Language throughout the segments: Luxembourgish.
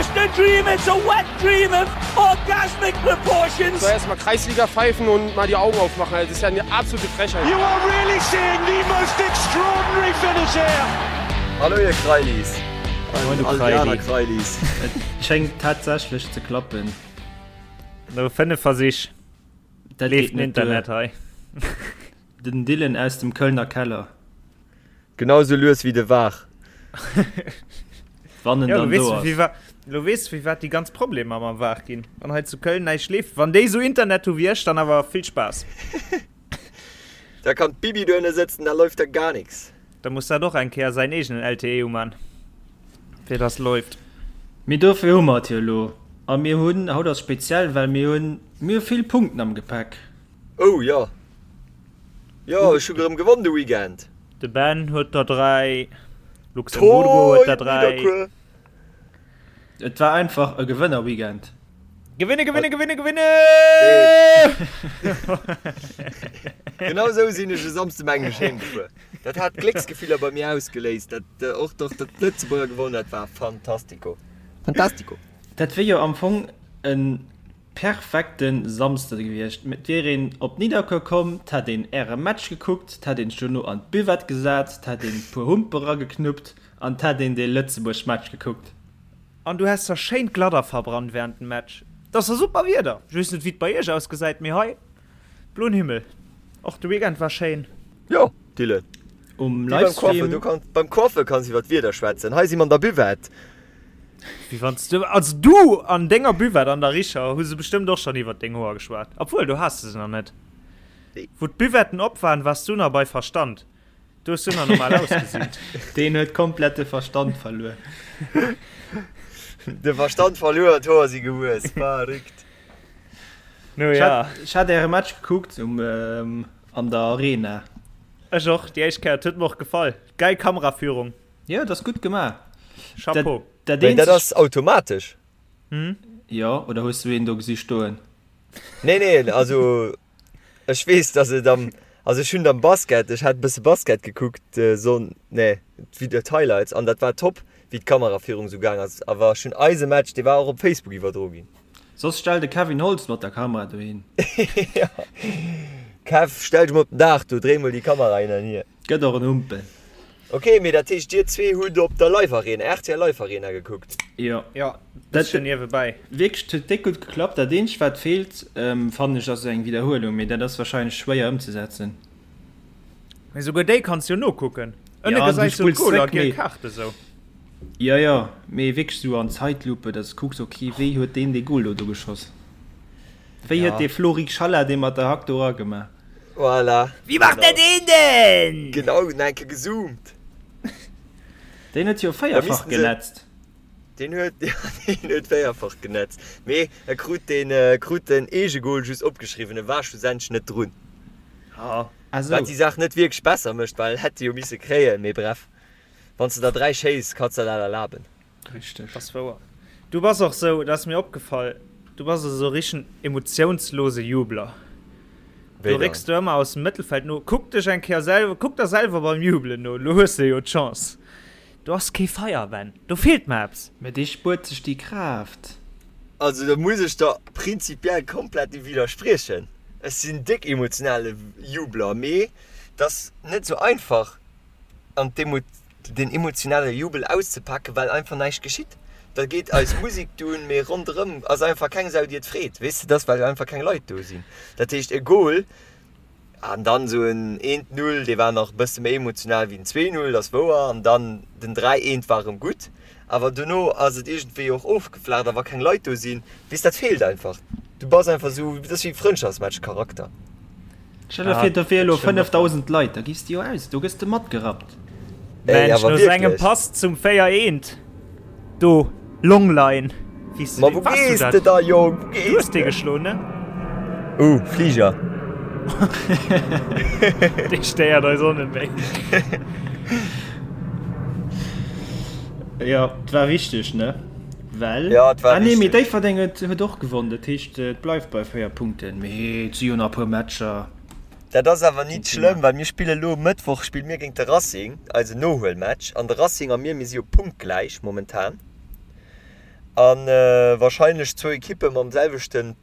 just a dream, it's a wet dream of orgasmic proportions. So erstmal Kreisliga pfeifen und mal die Augen aufmachen. Das ist ja eine absolute Frechheit. You are really seeing the most extraordinary finish here. Hallo ihr Kreilis. Moin du All déi aner Kreili. Kreilis. Et schéngt tatsächlech ze klappen. No 5 Versich Dat leeft geet den net duer. Internet hei. Den Dylan aus dem Kölner Keller. Genau sou lues wéi de Var. Wann en Ja, lo dann weess do du, ass. wéi wa, lo weess du, firwat déi ganz Problemer mam Var ginn. Wann hei zu Köln näischt leeft. Wann déi sou Internet hu wéi ech, dann awer vill Spaass. Da kann d'Bibi dohinne sëtzen, da läuft da gar nix. Da muss dat och eng Kéier säin eegenen LTE uman, fir dass läuft. Mee dofir hu mer et jo elo. A mir hunn, haut ass speziell, well mir hunn, mir hu vill Punkten am Gepäck. Oh jo, jo ech hu gerëm gewonn de Weekend. De Ben huet der 3, Luxemburgo huet der 3. Et war einfach e Gewënner-Weekend. Gewinne, gewinne, gewinne, gewinne! Genau esou sinn ech e Samsde mengen ech heem gefuer. Dat hat Glécksgefiller bei mir ausgeléist, dat och doch datt d'Lëtzebuerger gewonnen dat war fantastico. Fantastico. Dat wier jo am Fong e Perfekten Samsde gewiescht. Et wier een op Nidderkuer komm, 't hätt een äre Match gekuckt, 't hätt een sech dono an d'Buvette gesat, 't hätt een puer Humpe rageknuppt an 't hätt een dee Lëtzebuerg Match gekuckt. An du häss der schéin d'Gladder verbrannt während dem Match. Et ass der super Wieder. Ech weess net wéi et bei iech ausgesäit, mee hei bloen Himmel. Och de Weekend war schéin. Jo, Dylan. Um Wéi beim Coiffer, Livestream. du kanns, beim Coiffer kanns iwwer d'Wieder schwätzen. Hei si mer an der Buvette. Wéi wann s du, also du an denger Buvette an der Richer hu se bestëmmt och schonn iwwert deng Hoer geschwat. Obwuel, do has de se nach net. Nee. Wou d'Buvetten op waren, waars du nach bei Verstand. Do hues du nach normal ausgesinn. Deen huet komplett de Verstand verluer. De Verstand verluer an d'Hoer si gewuess. Verrückt. No ja. Ech hat äre Match gekuckt um, an der Arena. Ech och, déi éischt Kéier. Et huet mer och gefall. Geil Kameraführung. Jo, et ass gutt gemaach. Chapeau. Dat Mee dat eenzegt. ass automatesch. Jo, oder hues du een do gesi stoen? Nee, nee, also ech weess, dass et am, also ech hunn et am Basket, ech hat e bësse Basket gekuckt, Sonn, nee, d'Video, d'Highlights, an dat war top, wéi d'Kamerafierung esou gaang ass. Awer ech hunn eise Match, dee war och op Facebook iwwerdro ginn. Soss stell de Kevin Holtz mat der Kamera dohin. Jo, Kev, stell dech mol op den Daach do, dréi mol déi Kamera hin an hier. Gëtt och en Humpel. Ok, mee dat heescht dir zwee hutt op der Live Arena, rtl Live Arena gekuckt? Jo. Jo, bësschen niewebäi. Wierklech, et huet déck gutt geklappt. Dat eenzegt wat feelt, fannen ech, ass eng Widderhuelung, mee dat ass wahrscheinlech schwéier ëmzesetzen. Mee souguer déi kanns jo nokucken. Ënne Ja, du gesäis du spulls d'Goler, zréck, giel mee. Kaart esou. Jo, jo, mee wierklech esou an Zeitlupe, dass du kucks, ok, wéi huet deen dee Goal do do geschoss? Wéi huet Ja. dee Flory Xhalla dee mat der Hack do eragemaach? Voilà. Wie macht der den denn? Genau, nach eng Kéier gezoomt. Deen huet jo véierfach genetzt. Deen huet, ja, deen huet véierfach genetzt. Mee e krut den, krut den Eegegol just opgeschriwwen, e war schlussendlech net drun. Ah esou. Wat déi Saach net wierklech besser mécht, well hätt e jo misse kréien. Mee bref, wann s de der 3 schéiss, kanns de der dat erlaben. Richteg. Ass wouer. Du bass och sou, dat ass mir opgefall, du bass esou richtegen emotionslose Jubler. Du récks du ëmmer aus dem Mëttelfeld no. Kuck dech eng Kéier selwer, kuck der selwer beim Jubelen no, lo hues de jo d'Chance. Do ass kee Feier, Ben, do feelt mer eppes. Mä dee spuert sech déi Kraaft. Also do muss ech der prinzipiell komplett widderspriechen. Ech sinn déck emotionale Jubler, mee et ass net sou einfach an d'Emo. den emotionale Jubel auszepaken, well einfach näischt geschitt. Da geet eis Musek dunn, mee ronderëm ass einfach keng Sau, déi et freet, weess de, dass well einfach keng Leit do sinn. Dat heescht e Goal an dann esou en eent Null, dee war nach e bësse méi emotional wéi den 2 Null, dat ass wouer, an dann den 3 eent war erëm gutt, awer dono ass et iergendwéi och ofgeflaacht a wa keng Leit do sinn, weess, dat feelt einfach. Du bass einfach esou, dat ass wéi Frëndschaftsmatch-Charakter. Stell der vir, do wier elo 5.000 Leit, da giffs de jo aus, do gëss de matgerappt. Mensch, no sengem Pass zum 4 eent do, Longline, wéi s de dee, wars du dat? Da, Jong, wou gees de? Du hues dee geschloen, ne? Uh, Fliger. Dee stéiert eis och net méi. Jo, et war wichteg, ne? Well, Ja, et war ah nee, mee wichteg. Déifferdeng huet, huet och gewonn, dat heescht, et bleift bei 4 Punkten, mee et si jo nach e puer Matcher. Dat ass awer Keen nit Thema. schlëmm, well mir spille lo Mëttwoch spille mir géint de Racing, eisen Nohuelmatch, an de Racing a mir, mir si jo punktgläich momentan. A warscheinlech zwou Ekippe mam selwechte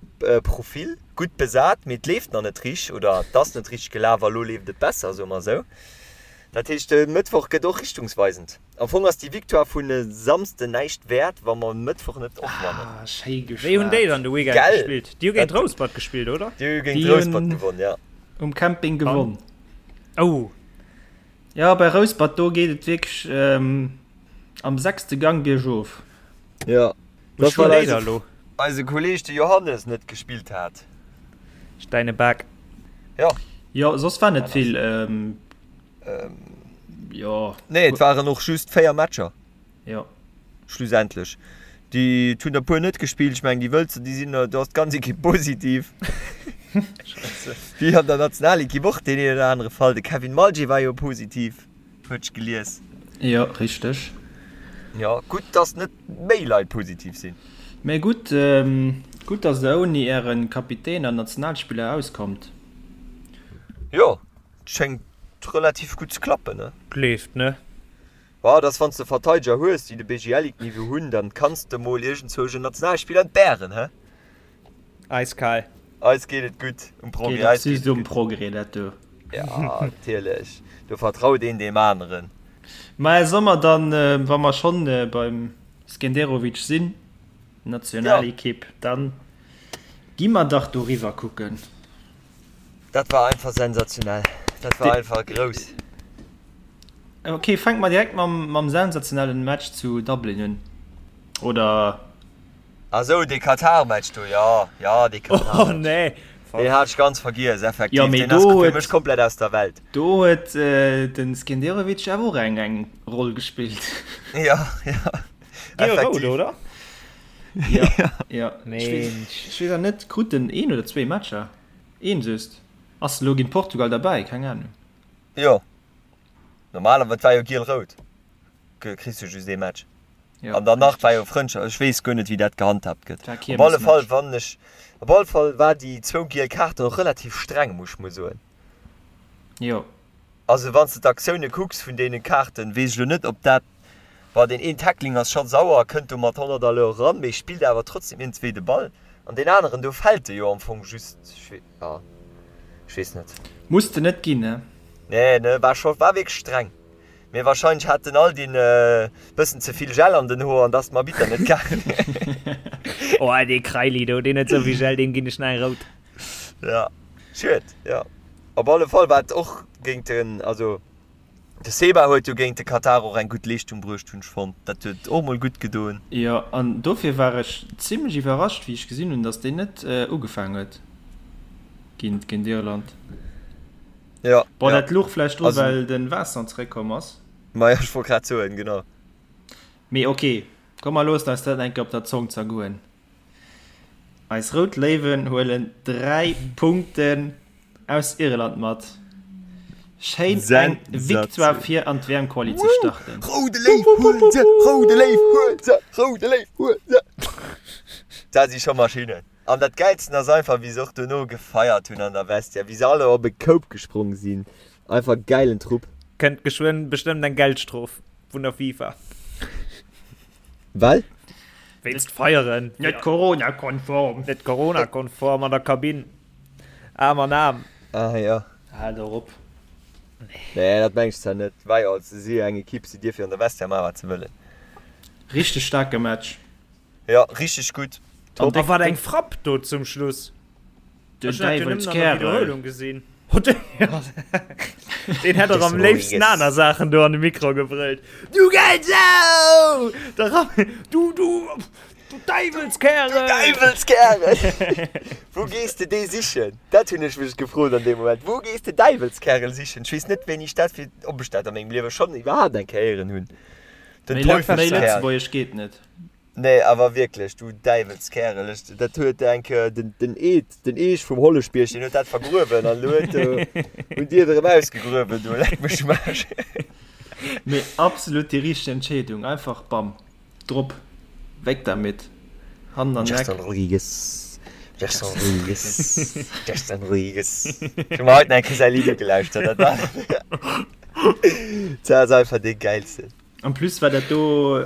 Profil, gutt besat, mee et leeft nach net richteg oder et ass net richteg gelaf a lo leeft et besser, soe mer esou. Dat heescht, de Mëttwoch gëtt och richtungsweisend. Am Fong ass déi Victoire vun e Samsden näischt wäert, wa mer e Mëttwoch net och wannen. Ah, schéi geschwat. Wéi hunn déi dann de Weekend Gell? gespillt? Déi hu géint Rouspert gespillt, oder? Déi hu géint Déi Rouspert hunn gewonn, ja. um Camping gewonn. Oh. Jo, bei Rouspert, do geet et wierklech am sechste Gang biergof. Jo, Wou dat spillen well déi da eise, lo? eise Kolleeg de Johannes net gespillt hat. Steineback. Jo. Jo, soss war net vill. Jo. Nee, et waren och just 4 Matcher. Jo. Schlussendlech. Déi et hunn der puer net gespillt. Ech mengen déi Wëlzer, déi sinn, do ass d'ganz Ekipp positiv. Wéi an der Nationalekipp och deen een oder anere Fall. De Kevin Malget war jo positiv, huet ech gelies. Jo, richteg. Jo, gutt, dass net méi Leit positiv sinn. Mee gutt, gutt, dass der ouni äre Kapitän an Nationalspiller auskommt. Jo, Schéngt relativ gutt ze klappen, ne? Leeft, ne? Bah, dass wanns de Verteideger hues, déi de BGL-Ligue-Niveau hunn, dann kanns de mol iergendzwousch en Nationalspiller entbären, he? Eiskal. Eis geet et gutt um Progrès, Geet och eis geet just et um gutt. Progrès, dat do. Ja, natierlech, do vertraut een deem aneren. Mä soll mer dann, wa mer schonn beim Skenderovic sinn, Nationalekipp, dann gi mer dach doriwwer kucken. Dat war einfach sensationell. Dat war einfach grouss. Ok, fänke mer direkt mam, mam sensationellen Match zu Dublin un. Oder? Ah sou, dee Katar-Match do, jo, jo, dee Katar-Match. Oh nee. Deen hat ech ganz vergiess, effektiv. Jo, mee Deen ass do fir huet, mech komplett aus der Welt. do huet den Skenderovic awer och eng, eng Roll gespillt. Jo, jo, Giel-rout, effektiv. oder? Ja, ja. Mensch. Ech weess awer net, krut en een oder zwee Matcher? Een just. Ass elo géint Portugal derbäi? Keng Ahnung. Jo, normalerweis, et war jo giel-rout, kriss du just ee Match. Jo, An danach war richteg. jo Frëndschaft, ech weess guer net wéi dat gehandhabt gëtt. War Op alle Fall Kiermesmatch. wann ech, op alle Fall war déi zwou giel Kaarten och relativ streng, muss ech mol soen. Jo. Also wann s de d'Aktioune kucks vun deene Kaarten, weess ech elo net ob dat, bon deen een Tackling ass scho sauer, kënnt do mat 100 à l'heure eran, mee spillt awer trotzdem iergendswéi de Ball an deen aneren do fält e jo am Fong just, jo ech weess net. Muss de net ginn, ne? Nee ne, war scho, war wierklech streng, mee wahrscheinlech hat den Aldin e bëssen ze vill Gel an den Hoer an dass dem Arbitter net gaangen. Oh dee Kraili do, deen huet souvill Gel, deem ginn ech nach eng rout. Ja, schued, jo. Op alle Fall war et och géint den, also de Seba huet jo géint de Katar och eng gutt Leeschtung bruecht, hunn ech fonnt. Dat huet och mol gutt gedoen. Jo, an dofir war ech zimlech iwwerrascht, wéi ech gesinn hunn, datt deen net ugefaangen huet géint géint Irland. Jo, Bon, jo. dat louch vläicht dru Also. well de Vincent zeréckkomm ass. Majo, ech wollt grad soen, genau. Mee ok, komm mer loossen eis dat eng Kéier op der Zong zergoen. Eis Rout Léiwen huelen 3 Punkten aus Irland mat. Schéin eng Victoire fir an d'WM-Quali ze starten. Roude Léiw huel se, roude Léiw huel se, roude Léiw huel se. Dat si scho Maschinnen. An dat Gäilsten ass einfach wéi se och dono gefeiert hunn an der Vestiaire, wéi se alle op e Koup gesprong sinn. Einfach gäilen Trupp. Kënnt geschwënn bestëmmt eng Geldstrof vun der FIFA. Well? Wéinst Feieren. Net Corona-konform. Net Corona-konform an der Kabinn. Aarm an Aarm. Ah jo. Hal der op. Nee, dat meng ech zwar net. War jo, se si jo eng Ekipp, si dierfe jo an der Vestiaire maachen, wat se wëllen. Richteg staarke Match. Jo, richteg gutt. Top. A wat eng Frapp do zum Schluss. Den Ech hunn dat jo nëmmen an der Däiwelskärel. Wiederholung gesinn. Deen hätt och am léifsten aner Saachen do an de Mikro gebrëllt. Du Gelsau! Da ram du, du, du Däiwelskärel! Du Däiwelskärel! Wou gees de dee sichen? Dat hunn ech mech gefrot an deem Moment. Wou gees de Däiwelskärel sichen? Ech weess net, wéini ech dat fir, ob ech dat a mengem Liewe schonn iwwerhaapt eng Kéier héieren hunn. Den Méi Lëtzebuergesch Teufelskerl. geet net. Nee awer wierklech, du Däiwelskerel, ech, dat huet eng Kéier den, den Eed, den Eech vum Holleschbierg, deen huet dat vergruewen an elo huet, hunn déi et erëm ausgegruewen do, leck mech um Aarsch. Mee absolut déi richteg Entscheedung, einfach bam, drop, weg damit, Hand an Gerson Eck. Rodrigues, Gerson Rodrigues, Gerson Rodrigues. Ech hu mer haut nach eng Kéier säi Lidd ugelauschtert, dat war, dat ass einfach dee gäilsten. En plus war dat do.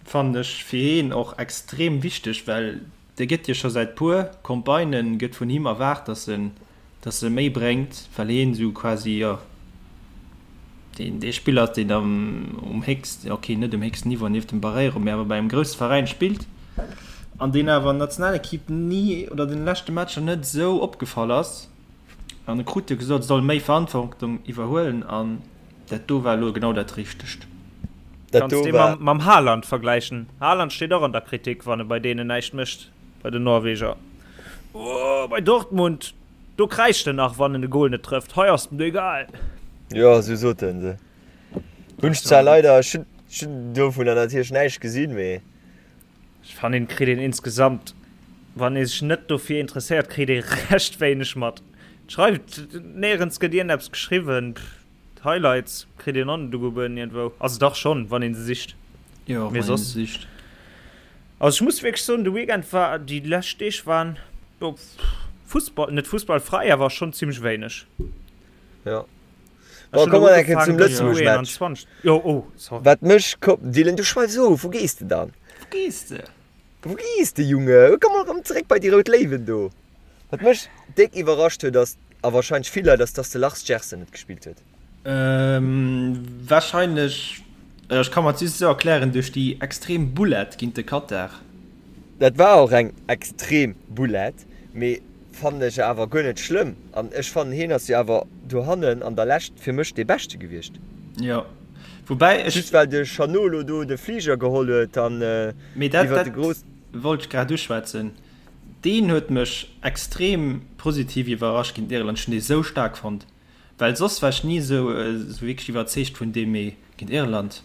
Fannen ech fir heen och extrem wichteg, well dee gëtt jo scho säit puer Campagnen gëtt vun him erwaart, dass en dass e méi bréngt, well heen esou quasi, jo, deen dee Spiller ass, deen am um héchsten, ok, net um héchsten Niveau nieft dem Barreiro, mee awer bei engem grousse Veräin spillt an deen awer an der Nationalequipe ni oder den leschte Matcher net esou opgefall ass. An e krut jo gesot, e soll méi Verantwortung iwwerhuelen an dat do war elo genau dat Richtegt. Dat Kanns do dee war. mam Haaland vergläichen. Haaland steet och an der Kritik, wann e bei deenen näischt mécht, bei den Norweger. Oh, bei Dortmund, do kräischt en nach, wann en e Gol net trëfft. Hei ass et em egal. Jo, esou sot en se. Hunn ech zwar leider, ech hunn, ech hunn dovunner natierlech näischt gesinn, mee. Ech fannen kritt een insgesamt, wann ee sech net dofir interesséiert, kritt ee recht wéineg mat. Schreift, néierens gëtt iergendeppes geschriwwen, d'Highlights kritt een och net ugebueden iergendwou, also dach schonn, wann ee se sicht, Jo, mee wann een soss. se sicht. Also ech muss wierklech soen, de Weekend war, déi lescht Deeg waren, jo, Fussball, net fussballfräi, awer schonn zimmlech wéineg. Jo. Bon, komme mer eng Kéier zum Lëtzebuerg-Match. Jo, oh, sorry. Wat mech ko-, Dylan, du schweifs of, wou gees de dann? Wou gees de? Wou gees de, Junge? Komm mol erëm zeréck bei déi rout Léiwen do. Wat mech déck iwwerrascht huet, ass, a warscheinlech vill Leit, ass, dass de Lars Gerson net gespillt huet. Warscheinlech, ech ka mer et just esou erklären, duerch déi extrem Boulette géint de Katar. Dat war och eng extrem Boulette, mee Fannen ech awer guer net schlëmm an ech fannen heen ass jo awer dohannen an der Lescht fir mech dee beschte gewiescht. Jo, woubäi ech. Just well de Chanot lo do de Fliger geholl huet an Mee dat iwwert de grouss. wollt ech grad uschwätzen. Deen huet mech extrem positiv iwwerrascht géint Irland. Ech hunn dee sou staark fonnt. Well soss war ech ni esou wierklech iwwerzeegt vun deem, mee géint Irland,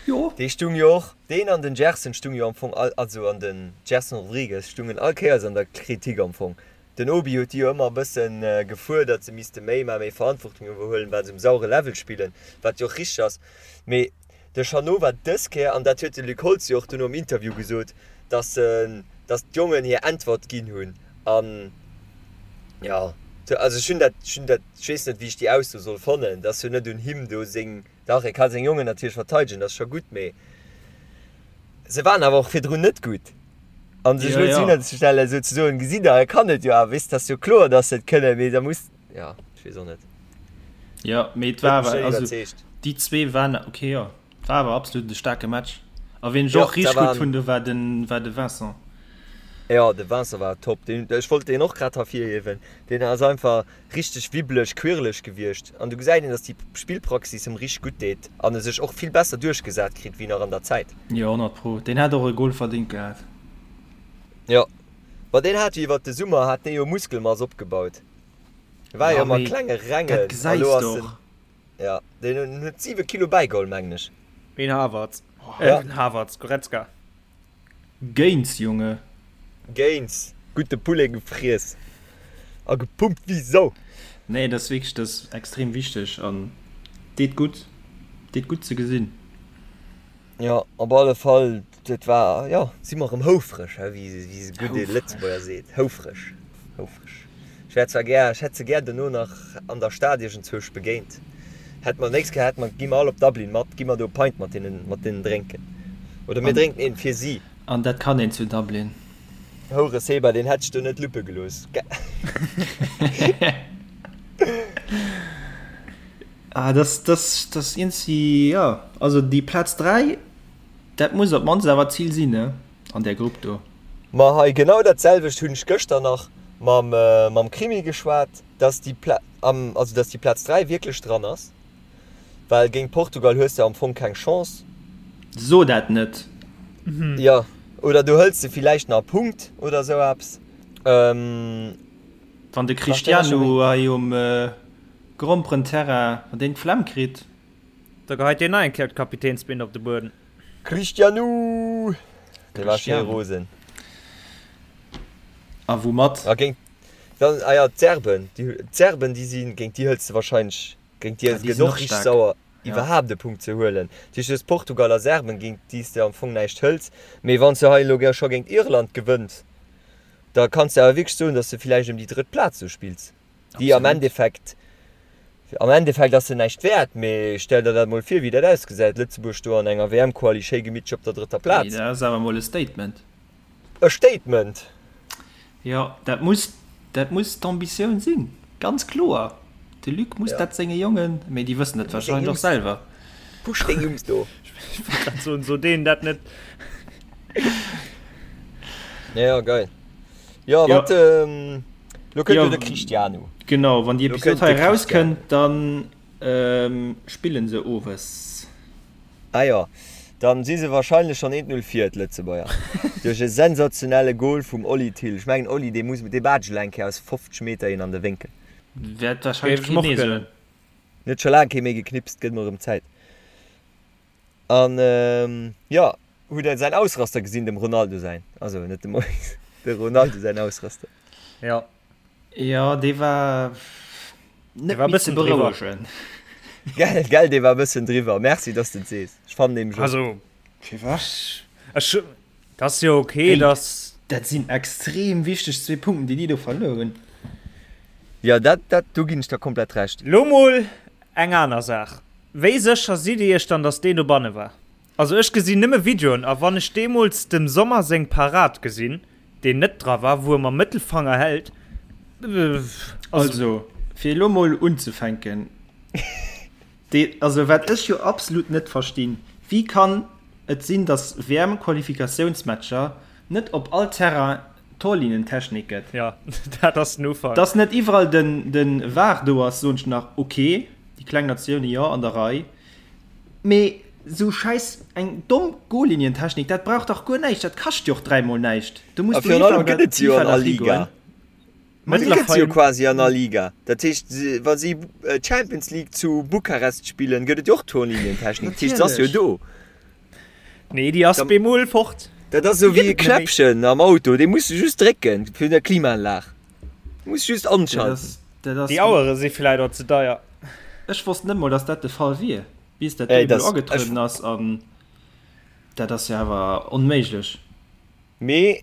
jo. Dee stung jo och, deen an den Gerson stung jo am Fong all, also an den Gerson Rodrigues stungen all Kéiers an der Kritik am Fong. Den Obi huet déi jo ëmmer e bëssen gefuerdert, se misste méi maachen, méi Verantwortung iwwerhuelen, well se um sauere Level spillen, wat jo och richteg ass. Mee de Chanot war dës Kéier, an dat huet de Luc Holtz jo och dono am Interview gesot, dass se, dass d'Jongen hir Äntwert ginn hunn an, jo, also ech hunn dat, ech hunn dat, ech weess net, wéi ech déi Ausso soll fannen, dass jo net un him do seng, dach, e ka seng Jongen natierlech verteidegen, dat ass scho gutt, mee se waren awer och virdrun net gutt. An sech elo hinzestellen, esou ze soen, gesitt Der, e kann et jo awer, weess, et ass jo kloer, dass se et kënnen, mee da muss, jo, ech weess och net. Jo, mee et war awer, also déi zwee waren, ok, jo, et war awer absolut e staarke Match. A ween ech och richteg gutt hunn, do war den, war de Vincent. Jo, de Vincent war top. Deen, ech wollt deen och grad hervirhiewen. Deen ass einfach richteg wibbeleg, quirleg gewiescht. An du gesäit een, dass déi Spillpraxis em richteg gutt deet an e sech och vill besser duerchgesat kritt wéi nach an der Zäit. Jo, 100 pro. Deen hätt och e Gol verdingt gehat. Jo, ma deen hat jo iwwert de Summer hat dee jo Muskelmass opgebaut. War jo ëmmer klenge Rengen a lo ass en, jo, deen huet 7 Kilo bäigeholl, mengen ech. Ween Havertz? Äh, Havertz, Goretzka. Gains, Junge. Gains, gudde Poulet gefriess a gepumpt wéi Sau. Nee, dat ass wierklech, dat ass extrem wichteg an deet gutt, deet gutt ze gesinn. Jo, op alle Fall, dat war, jo, si mer erëm houfreg, he, wéi se gudde Lëtzebuerger seet, houfreg, houfreg. Ech wär zwar gär, ech hätt se gär dono nach an der Stad iergendzwousch begéint. Hätt mer, nächst Kéier hätt mer, gi mer all op Dublin mat, gi mer do e Pint mat hinnen, mat deenen drénken. Oder mir drénken een fir si. An dat kann een zu Dublin. Houre Seba, deen hätt ech do net luppe gelooss. Ah, das, das, das iergendwéi, jo, also déi Plaz 3, dat muss op d'mannst awer d'Zil sinn, ne, an där Grupp do. Ma hei, genau dat selwecht hunn ech gëschter nach mam, mam Krimi geschwat, dass déi Pla, am, also dass déi Plaz 3 wierklech dran ass, well géint Portugal hues de am Fong keng Chance. So dat net! Jo, oder du hëls de villäicht nach e Punkt oder esou eppes. Wann de Cristiano hei um Gromperenterrain, wann deen d'Flemm kritt. Da geheit deen nach eng Kéier d'Kapitänsbinde op de Bueden. Cristiano! Dee war schéi rosen. A woumat? A géint dann, ah ja, d'Serben, déi, d'Serben, déi sinn, géint déi hëls de wahrscheinlech, géint déi Ah, déi gëtt sinn och och richteg staark. sauer, Ja. iwwerhaapt e Punkt ze huelen. Dat heescht, du hues Portugal a Serben, géint déi s de am Fong näischt hëls. Mee wann s de hei elo scho géint Irland gewënns, da kanns de awer wierklech soen, datt s de villäicht ëm déi drëtt Plaz do spills. déi am Endeffekt. Am Endeffekt ass se näischt wäert, mee stell der dat mol vir, wéi dat ausgesäit, Lëtzebuerg do an enger WM-Quali schéi gemittlech op der drëtter Plaz. Dat ass awer mol e Statement. E Statement! Jo, dat muss, dat muss d'Ambitioun sinn, ganz kloer. De Luc muss dat senge Jongen, mee déi wëssen dat warscheinlech och selwer. Push deng Jungs do! Ech wollt grad soen, so deenen dat net. Jo, geil. Jo, wat, lo kënnt jo de Cristiano. Genau, wann déi Episod hei erauskënnt, dann spillen se owes. Ah jo, dann si se wahrscheinlech schonn 1-0 vir, d'Lëtzebuerger. Duerch e sensationelle Goal vum Oli Thill. Ech mengen Oli, dee muss, dee baatscht elo eng Kéier aus 50 Meter een an de Wénkel. Wäert wahrscheinlech keen Nee soen. Huet scho laang kee méi geknipst, gëtt mol erëm Zäit. An jo, hutt der säin Ausraster gesinn, dem Ronaldo säin, also net dem Mois, de Ronaldo säin Ausraster? Jo. Jo, dee war net méi ze berouegen. Gell, gell, dee war e bëssen driwwer. Merci, dass de et sees. Ech fannen nämlech och. Also, firwat? Ech, dat ass jo ok, dass. Dat sinn extrem wichteg zwee Punkten, déi déi do verluer hunn. Jo, dat, dat, do ginn ech der komplett Recht. Lo mol eng aner Saach. Wéi sécher sidd Dir Iech dann, dass deen dobanne war? Also ech gesinn nëmme Videoen, a wann ech deemools dem Sommer seng Parad gesinn, deen net dra war, wou e mam Mëttelfanger hält, also. Also, fir elo mol unzefänken, dee, also wat ech jo absolut net verstinn, wéi kann et sinn, dass WM-Qualifikatiounsmatcher net op all Terrain Torlinientechnik gëtt? Jo, dat ass den Ufank. Dass net iwwerall den, den var do ass, soen ech nach, ok, déi kleng Natioune, jo, an der Rei. Mee sou schäiss eng domm Goallinientechnik, dat brauch dach guer näischt, dat kascht jo och dräimol näischt. Do muss d'UEFA oder d'FIFA dach higoen. Ma déi gëtt se jo quasi an all Liga. Dat heescht, wa si d'Champions League zu Bukarest spillen, gëtt et jo och Torlinientechnik. Dat heescht, se ass jo do. Nee, déi ass bemol fort. Dat ass esou wéi e Knäppchen am Auto, dee muss de just drécken fir der Klimaanlag. Muss just anschalten. Déi Auere si vläit och ze deier. Ech wosst net mol, dass dat de Fall wier, bis dat do emol agetrueden ass. An dat ass jo awer onméiglech. Mee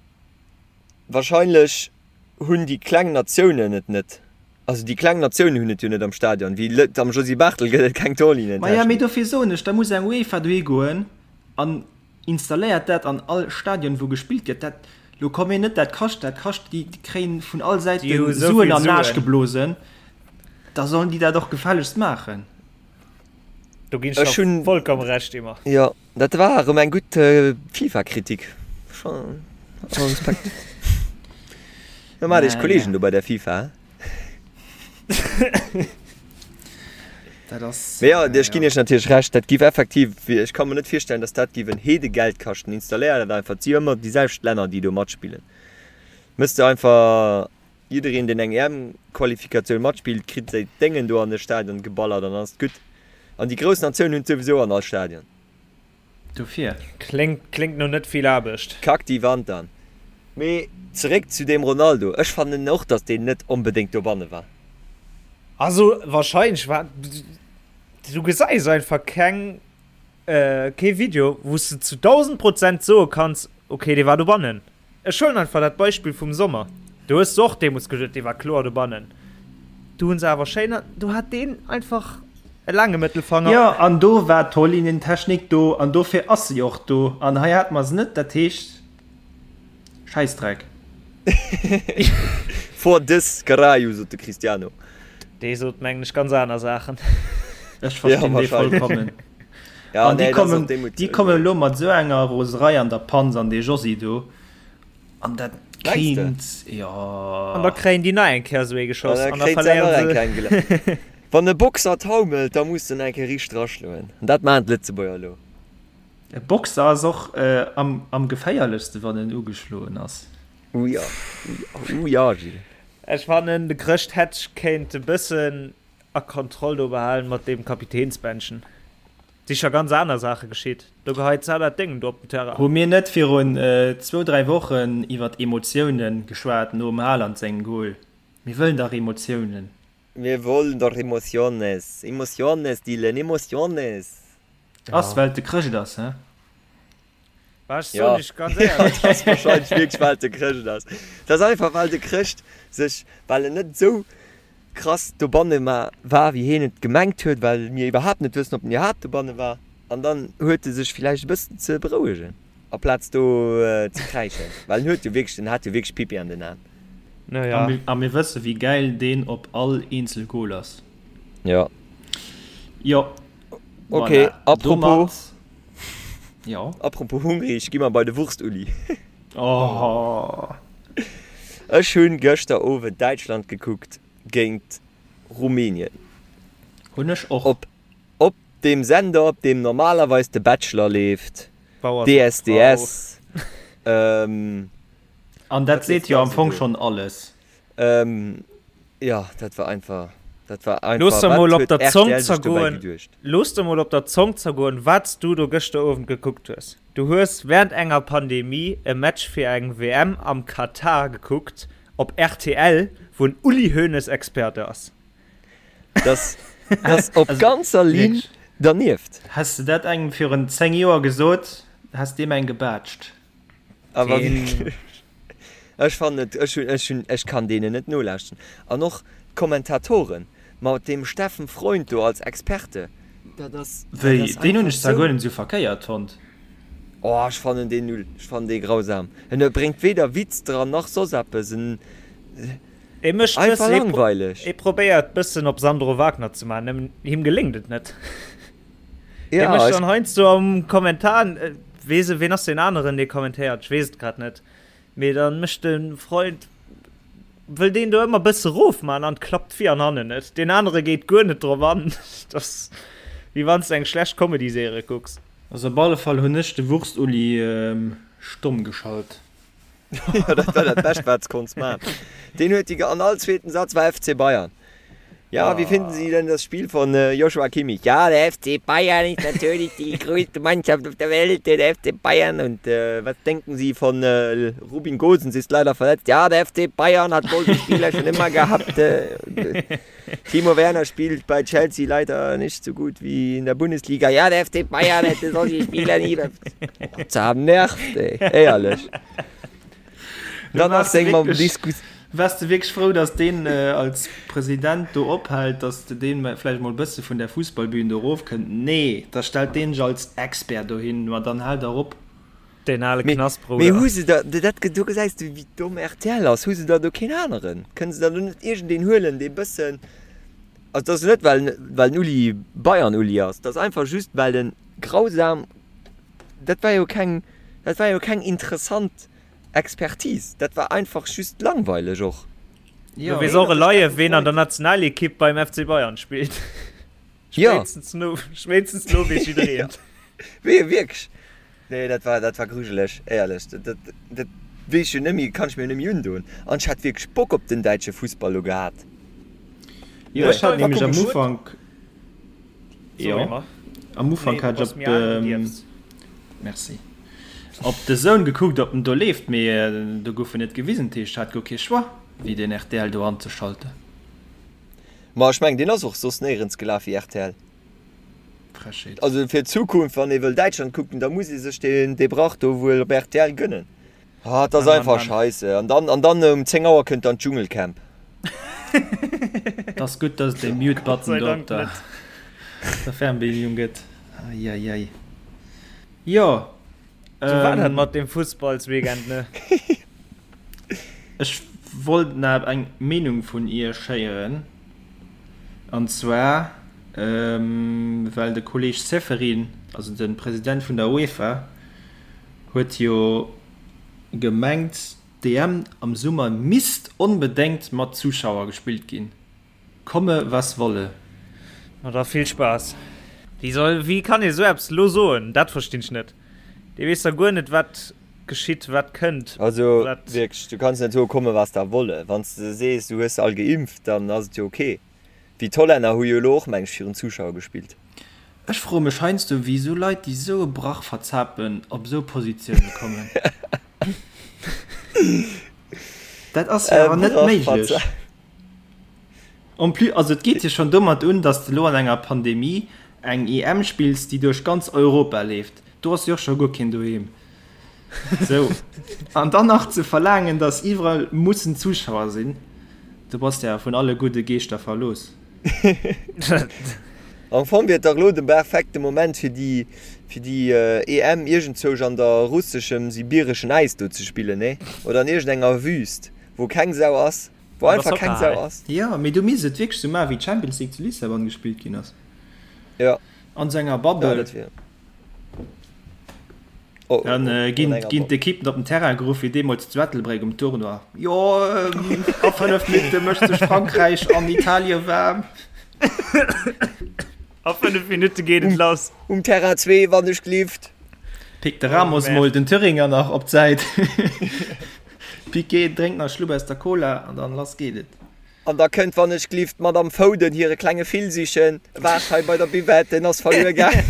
wahrscheinlech hunn déi kleng Natiounen et net. Also déi kleng Natiounen hunn et jo net am Stadion. Wéi lët am Josy Barthel gëtt et keng Torlinientechnik. Maja, mee dofir soen ech, da muss eng UEFA dohi goen an installéiert dat an all Stadion wou gespillt gëtt. Dat, lo komm mir net, dat kascht, dat kascht, déi kréien vun all Säite Suen an den Aarsch geblosen, da sollen déi dat och gefällegst maachen. Do ginn ech der vollkomme Recht, Emma. Jo. Dat war erëm eng gutt FIFA-Kritik. Schon Respekt. Da maacht iech Kollegen do bei der FIFA. Dat ass. Mee jo, ech ginn iech natierlech Recht, dat giff effektiv, ech ka mer net virstellen, datt dat giff en Heedegeld kaschten. Installéier dat einfach, et si jo ëmmer déi selwecht Länner, déi do matspillen. Mëss de einfach jiddereen, deen eng EM-Qualifikatioun matspillt, kritt säi Déngen do an de Stadion geballert an dann ass et gutt. An déi grouss Natiounen hunn et souwisou an all Stadion. Dofir. Kléngt, kléngt no net vill Aarbecht. Kack déi Wand an. Mee zeréck zu deem Ronaldo, ech fannen och, datt deen net onbedéngt dobanne war. Also wahrscheinlech war, du gesäis einfach keng. Kee Video wou s de zu 1000 Prozent soe kanns, ok dee war dobannen. Ech huelen einfach dat Beispill vum Sommer, do hues de och deemools geduet dee war kloer dobannen, do hunn se awer schéin, do hat deen einfach e laange Mëttelfanger. Jo, an do war d'Torlinientechnik do an dofir ass se jo och do an hei hate mer se net, dat heescht Schäissdreck. For des caralho, sot de Cristiano. Dee sot mengen ech ganz aner Saachen. Ech verstinn dee vollkommen. Ja, An déi nee, dat ass och kommen, déi Mut. déi kommen elo mat esou enger Roserei an der Panz an dee Josy do. An dat Mengs de? kéint, jo. An da kréien déi nach eng Kéier esou ee An geschoss da an da kréint se nach verléieren eng se. Kéier eng gele. Wann e Boxer taumelt, da muss en eng Kéier riicht draschloen. An dat maachen d'Lëtzebuerger elo. E Boxer ass och am, am geféierlechste wann en ugeschloen ass. Uh ja, uh ja, Gilles. Ech fannen de Chrëscht hätt kéint e bëssen a Kontroll do behalen mat deem Kapitänsbändchen. Si scho ganz aner Saache geschitt. Do geheit s'al dat Déngen do op den Terrain. Hu mir net virun zwou, dräi Wochen iwwert Emotiounen geschwat nom Haaland sengem Goal? Mir wëllen dach Emotiounen. Mir wollen doch Emociones. Emociones, Dylan, Emociones. Ass well et de Chrëscht ass, he? Bah, ech Ja. soen iech ganz éierlech. Et ass wahrscheinlech wierklech well et de Chrëscht ass. Et ass einfach well de Chrëscht sech, well en net esou. Krass dobanne war, wéi heen et gemengt huet, well mir iwwerhaapt net wëssen, ob en iwwerhaapt dobanne war. An dann huet e sech villäicht e bëssen ze berouegen, aplaz do ze kräischen, well en huet jo wierklech, en hat jo wierklech Pipi an den Aen. Naja. A mir wësse wéi gäil deen op all eenzel Goal ass. Jo. Jo. Ok, Voilà. apropos, Domat, jo. apropos hungrig, gi mer bei de Wurst-Uli. Oh. Ech hunn gëschter Owend Däitschland gekuckt géint Rumänien. Hunn ech och. Op op deem Sender op deem normalerweis de Bachelor leeft, Bauer sucht Frau. DSDS, ähm, An dat wat seet leeft jo nach am esou Fong do? schonn alles. Ähm, jo, dat war einfach, dat war Looss einfach, der mol wat op huet der Zong rtl sech dobäi zergoen, geduecht? looss der mol op der Zong zergoen, wat s du do gëschter Owend gekuckt hues. Du hues während enger Pandemie e Match fir eng WM am Katar gekuckt op rtl, wou en Uli Hoeneß Experte ass. Das, das op Also, ganzer Linn wierklech. dernieft. Häss de dat engem virun 10 Joer gesot, häss deem eng gebaatscht. Awer Deen. wierklech. Ech fannen et, ech hunn, ech hunn, ech kann deenen net nolauschten. An och d'Kommentatoren mat deem Steffen Freund do als Experte, dat ass, dat Wéi, ass deen hunn einfach ech zwar sou. guer net esou verkéiert fonnt. Oh, ech fannen deen null, ech fannen dee grausam. En bréngt weder Witz dran nach soss eppes, en E mécht einfach bëssen, e pro, langweileg. e probéiert bëssen op Sandro Wagner ze maachen, nëmmen him geléngt et net. E Ja, mécht ech. dann heiansdo am Kommentar, weess e, ween ass deen aneren, dee kommentéiert, ech weess et grad net. Mee dann mécht de Freund, wëll deen do ëmmer bësse rof man an klappt vir an hannen net. Deen anere geet guer net drop an. Dat ass wéi wann s de eng schlecht Comedy-Serie kucks. Also op alle Fall hunn ech de Wurst-Uli stomm geschalt. Jo, dat war dat Bescht, wat s konns man. Deen huet déi, an all zweeten Satz war FC Bayern. Ja, wie finden Sie denn das Spiel von Joshua Kimmich? Ja, der FC Bayern ist natürlich die größte Mannschaft auf der Welt, der FC Bayern. Und was denken Sie von Rubin Gosens, ist leider verletzt. Ja, der FC Bayern hat solche Spieler schon immer gehabt. Timo Werner spielt bei Chelsea leider nicht so gut wie in der Bundesliga. Ja, der FC Bayern hätte solche Spieler nie. Zernervt, ey. Éierlech. Dann ass seng mam Diskus. Wars de wierklech frou, dass deen als President do ophält, dass de deen vläicht mol bësse vun der Fussballbühn do erofkënnt? Nee, da stellt deen sech als Expert dohin, ma dann haalt der op. Deen ale Mee, Knastbrouder. mee hu se da, dat, do gesäis de wéi domm rtl ass, hu se da do keen aneren? Kënne se da do net iergendeen huelen, dee bëssen, also dat ass net well, well den Uli Bayern-Uli ass, dat ass einfach just well en grausam, dat war jo keng, dat war jo keng interessant Expertise, dat war einfach just langweileg och. Du weess och elei, ween an der Nationalekipp beim FC Bayern spillt. Spéitstens no, spéitstens no weess jiddereen. Wee, wierklech? Nee, dat war, dat war grujeleg, éierlech. Dat, dat, dat weess ech jo net méi, kann ech mir jo net méi undoen. An ech hat wierklech Bock op den däitsche Fussball lo gehat. Jo, ech hat nämlech am Ufank, jo, am Ufank hat ech op de, merci, op de Soun gekuckt, ob en do leeft, mee do gouf en net gewisen, dat heescht, ech hat guer kee Choix, wéi den rtl do anzeschalten. Ma ech mengen, deen ass och soss néierens gelaf wéi rtl. Frechheet. Also fir d'Zukunft, wann ee wëll Däitschland kucken, da muss ee sech deen dee Brach do wuel op rtl gënnen. Ah, et ass einfach scheisse. An dann, an dann um 10 Auer kënnt dann d'Dschungelcamp. Et ass gutt, dass et dee Mute Button do op der der Fernbedienung gëtt. Eieiei. Jo. Sou war dat mat dem Fussballsweekend, ne? Ech wollt nach eng Meenung vun Iech héieren, an zwar well de Kolleg Ceferin, also de President vun der UEFA, huet jo gemengt, d'EM am Summer misst onbedéngt mat Zuschauer gespillt ginn. Komme was wolle. Ma da vill Spaass. Wéi soll, wéi kann ee sou eppes elo soen? Dat verstinn ech net. Dee weess da guer net wat geschitt, wat kënnt, Also wat. wierklech, du kanns net soe komme was da wolle. Wann s de sees du hues se all geimpft, dann ass et jo ok. Wéi d'Hollänner hu jo elo och meng ech virun Zuschauer gespillt. Ech froe mech heiansdo wéi esou Leit déi esou e Brach verzapen op esou Positioune kommen. Dat ass jo E awer net Brach méiglech. verzapen. En plus, also et geet jo schonn domat un, datt s de elo an enger Pandemie eng EM spills, déi duerch ganz Europa leeft. Do ass jo och scho guer keen doheem. Sou, an dann nach ze verlaangen, datt iwwerall mussen Zuschauer sinn. Du bass ja vun alle gudde Geeschter verlooss. Am Fong wier et dach elo de perfekte Moment fir déi fir déi EM iergendzousch an der russeschem sibireschen Äis do ze spillen, nee? Oder an iergendenger Wüst, wou keng Sau ass, wou einfach keng Sau ass. Jo, mee du misst et wierklech sou maachen, wéi d'Champions League zu Lissabon gespillt ginn ass. Jo. An sou enger Bubble. Ja, dat wier. Dann ginn d'Ekippen op den Terrain geruff, wéi deemools zu Ettelbréck um Tournoi. Jo, a 5 Minutte mécht sech Frankräich an Italien waarm. A 5 Minutte geet et lass. Um Terrain 2, wann ech gelift. Pickt de Ramos mol den Thüringer nach op d'Säit. Piqué drénkt nach e Schlupp aus der Cola an dann lass geet et. An da kënnt wann ech glift d'Madame Foden hire klenge Fil sichen. Waart hei bei der Buvette, en ass verluer gaang.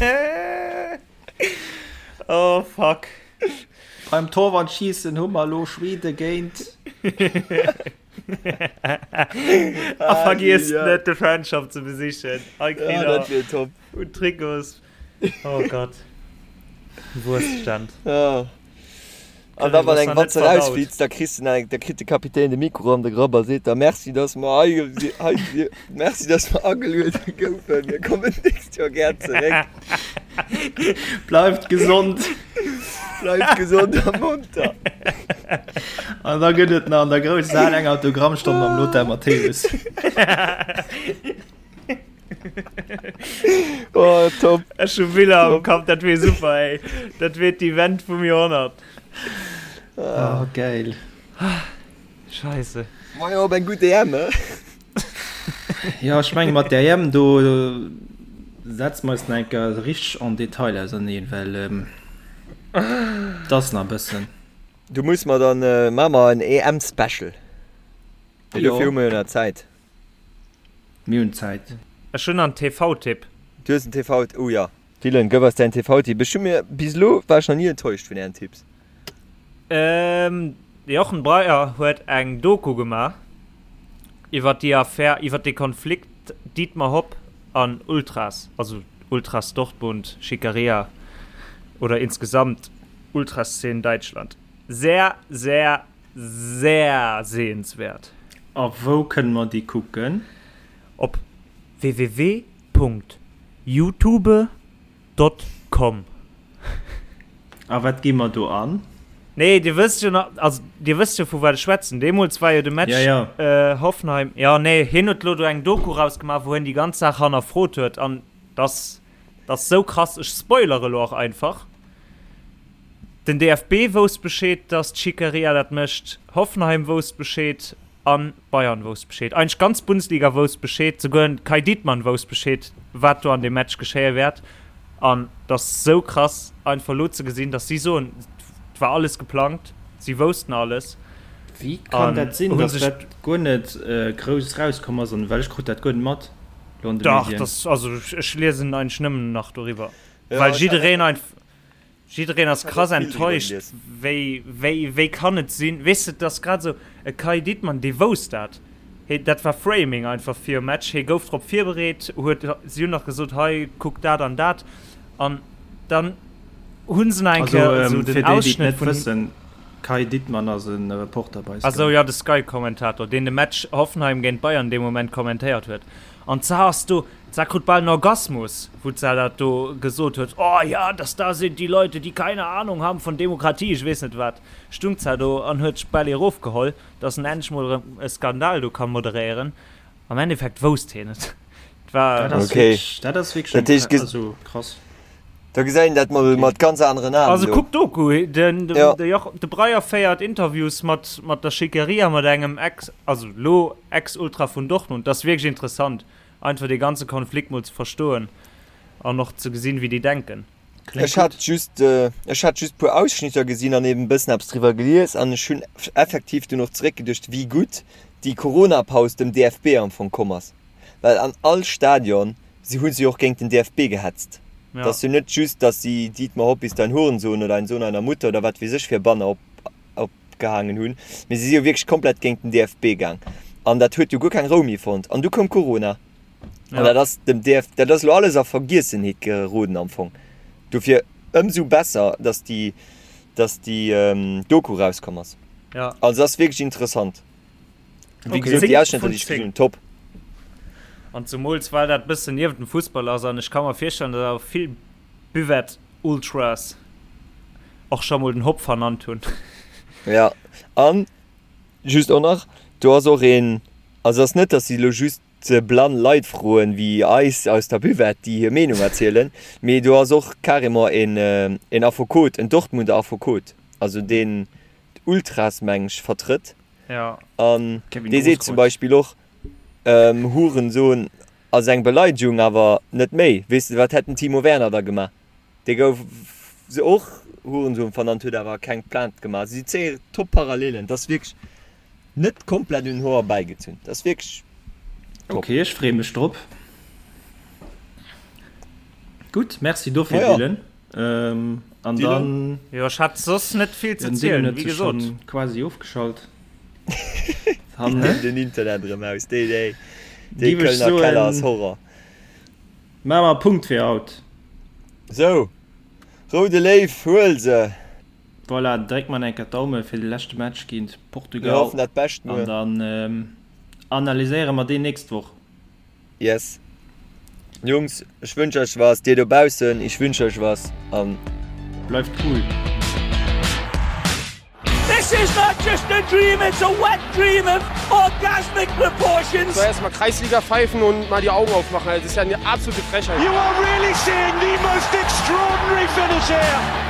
Oh fuck. Beim Torwandschiessen hu mer elo Schweden géint. A vergiesst net de Fanshop ze besichen. Hei kritt der dat wier top. Un Trikots. Oh Gott. Wurststand. Ja. An da wann eng Watz erausflitzt, da kriss de eng, da kritt de Kapitän de Mikro an de Grapp a seet da Merci, dass mer hei, hei, Merci, dass mer ageluede goufen. Mir kommen d'nächst Joer gär zeréck. Bleift gesond. Bleift gesond a monter. An da gëtt et nach an der grousser Hal eng Autogrammstonn mam Lothar Matthäus. Oh, top. Ech hu Biller am Kapp, dat wier super, ey. Dat wier d'Event vum Joerhonnert. Oh, geil. Scheisse. Ma jo, op eng gutt EM, he? Jo, ech menge mat der EM do setze mer eis nach eng Kéier richteg en Detail auserneen, well et ass nach e bëssen. Du muss mer dann, maache mer en EM-Special. Mee dofir hu mer jo nach Zäit. Mir hunn Zäit. Ech hunn en TV-Tipp. Du hues en TV, oh jo. Dylan, gëff eis däin TV-Tipp. Ech hu mir, bis elo war ech nach ni enttäuscht vun ären Tipps. De Jochen Breyer huet eng Doku gemaach iwwer déi Affär, iwwer dee Konflikt Dietmar Hopp an Ultras, also Ultras Dortmund, Schickeria oder insgesamt Ultraszene Däitschland. Sehr, sehr Sehr sehenswert. A wou kënne mer déi kucken? Op www.youtube.com. A wat gi mer do an? Nee, dir wësst jo nach, also dir wësst jo vu wat ech schwätzen. Deemools war jo de Match Ja, ja. Hoffenheim, jo nee, hien huet lo do eng Doku rausgemaach, wou hien déi ganz Saach hannerfrot huet an dass dass sou krass, ech spoilere lo och einfach. Den DFB wousst Bescheed, dass d'Schickeria dat mécht, Hoffenheim wousst Bescheed a Bayern wousst Bescheed. Eigentlech d'ganz Bundesliga wousst Bescheed, souguer den Kai Dittmann wousst Bescheed, wat do an deem Match geschéie wäert. An et ass sou krass einfach elo ze gesinn, dass si soen, et war alles geplangt, si woussten alles. Wéi kann dat sinn, dass dat guer net grouss rauskomm ass? Well ech krut dat guer net mat elo an de Medien. Dach, also ech liesen eigentlech nëmmen nach doriwwer, well jiddereen einfach. Jiddereen ass krass enttäuscht, wéi, wéi, wéi kann et sinn, weess de, et ass grad esou, e Kai Dittmann, dee wousst dat, hee, dat war Framing einfach virum Match, hee gouf drop virbereet, huet, si hunn nach gesot, hei, kuck dat an dat, an dann hu se nach eng Kéier esou den Ausschnëtt vun him. Kai Dittmann ass e Reporter bei Sky. Ah sou, jo, de Sky-Kommentator, deen de Match Hoffenheim géint Bayern dee Moment kommentéiert huet, an zwar ass do, D'Sar krut bal en Orgasmus, wou d'Sar dat do gesot huet, Oh ja, das da sind die Leute, die keine Ahnung haben von Demokratie, ech weess net wat. Stung d'Sar do an huet sech bal ee rofgeholl, dass en endlech mol erëm e Skandal do ka moderéieren. Am Endeffekt wousst hien et. Et war. Dat ass wierklech, dat ass wierklech also krass. Da gesäit een dat mol mat ganz aneren Aen Also kuck d'Doku, den, de, de, Joch, de Breyer féiert Interviews mat, mat der Schickeria, mat engem Ex, also lo Ex-Ultra vun Dortmund. Dat ass wierklech interessant. Einfach dee ganze Konflikt mol ze verstoen an och ze gesinn, wéi déi denken. Ech hat just, ech hat just puer Ausschnitter gesinn an eben e bëssen eppes driwwer gelies an ech hunn effektiv dunn och zeréckgeduecht, wéi gutt déi Corona-Paus dem DFB am Fong komm ass. Well an all Stadion si hu si och géint den DFB gehetzt. Et ass jo net just, datt si Dietmar Hopp ist ein Hurensohn oder ein Sohn einer Mutter oder wat weess ech fir Banner op, op gehaangen hunn, mee si si jo wierklech komplett géint den DFB gaang an dat huet jo guer keng Rou méi fonnt an du koum Corona an dat ass dem DF, dat ass elo alles a Vergiessenheet geroden am Fong. Dofir ëmsou besser, datt déi, datt déi Doku rauskomm ass. Ja. Also ass wierklech interessant. Wéi gesot, déi Ausschnëtter, déi ech gesinn hunn, top. An zumools well dat bëssen niewent dem Fussball ass an ech ka mer virstellen, datt awer vill Buvette-Ultras och scho mol den Hopp vernannt hunn. Ja, an just och nach, do ass och een, also ass net, datt si elo just blann Leit froen, wéi eis aus der Buvette, déi hir Meenung erzielen, mee do ass och carrément een, een Affekot, en Dortmunder Affekot, also deen d'Ultras, meng ech, vertrëtt. Ja. An dee seet zum Beispill och, Hurensohn ass eng Beleidegung, awer net méi. Weess de, wat hätt den Timo Werner da gemaach? Dee gouf och Hurensohn vernannt, huet awer keng Plainte gemaach. Also si zéie top Parallelen. Dat ass wierklech net komplett un den Hoer erbäigezunn. Dat ass wierklech top. Ok, ech freeë mech drop. Gutt, merci dofir, Dylan. An dann. Jo, ech hat soss net vill ze zielen, wéi gesot. Quasi ofgeschalt. Den Internet erëm aus. Déi, déi, dee Kölner Keller ass Horror. Maache mer e Punkt fir haut. Sou, Roude Léiw, huel se! Voilà, dréck mer enker d'Daume fir de leschte Match géint Portugal. Mir hoffen dat Bescht muer. An dann analyséiere mer deen nächst Woch. Yes Jungs, ech wënsch euch was, dir dobaussen, ich wünsch euch was an. Bleift cool! This is not just a dream, it's a wet dream of orgasmic proportions. Soll erstmal Kreisliga pfeifen und mal die Augen aufmachen, das ist ja eine absolute Frechheit. You are really seeing the most extraordinary finish here.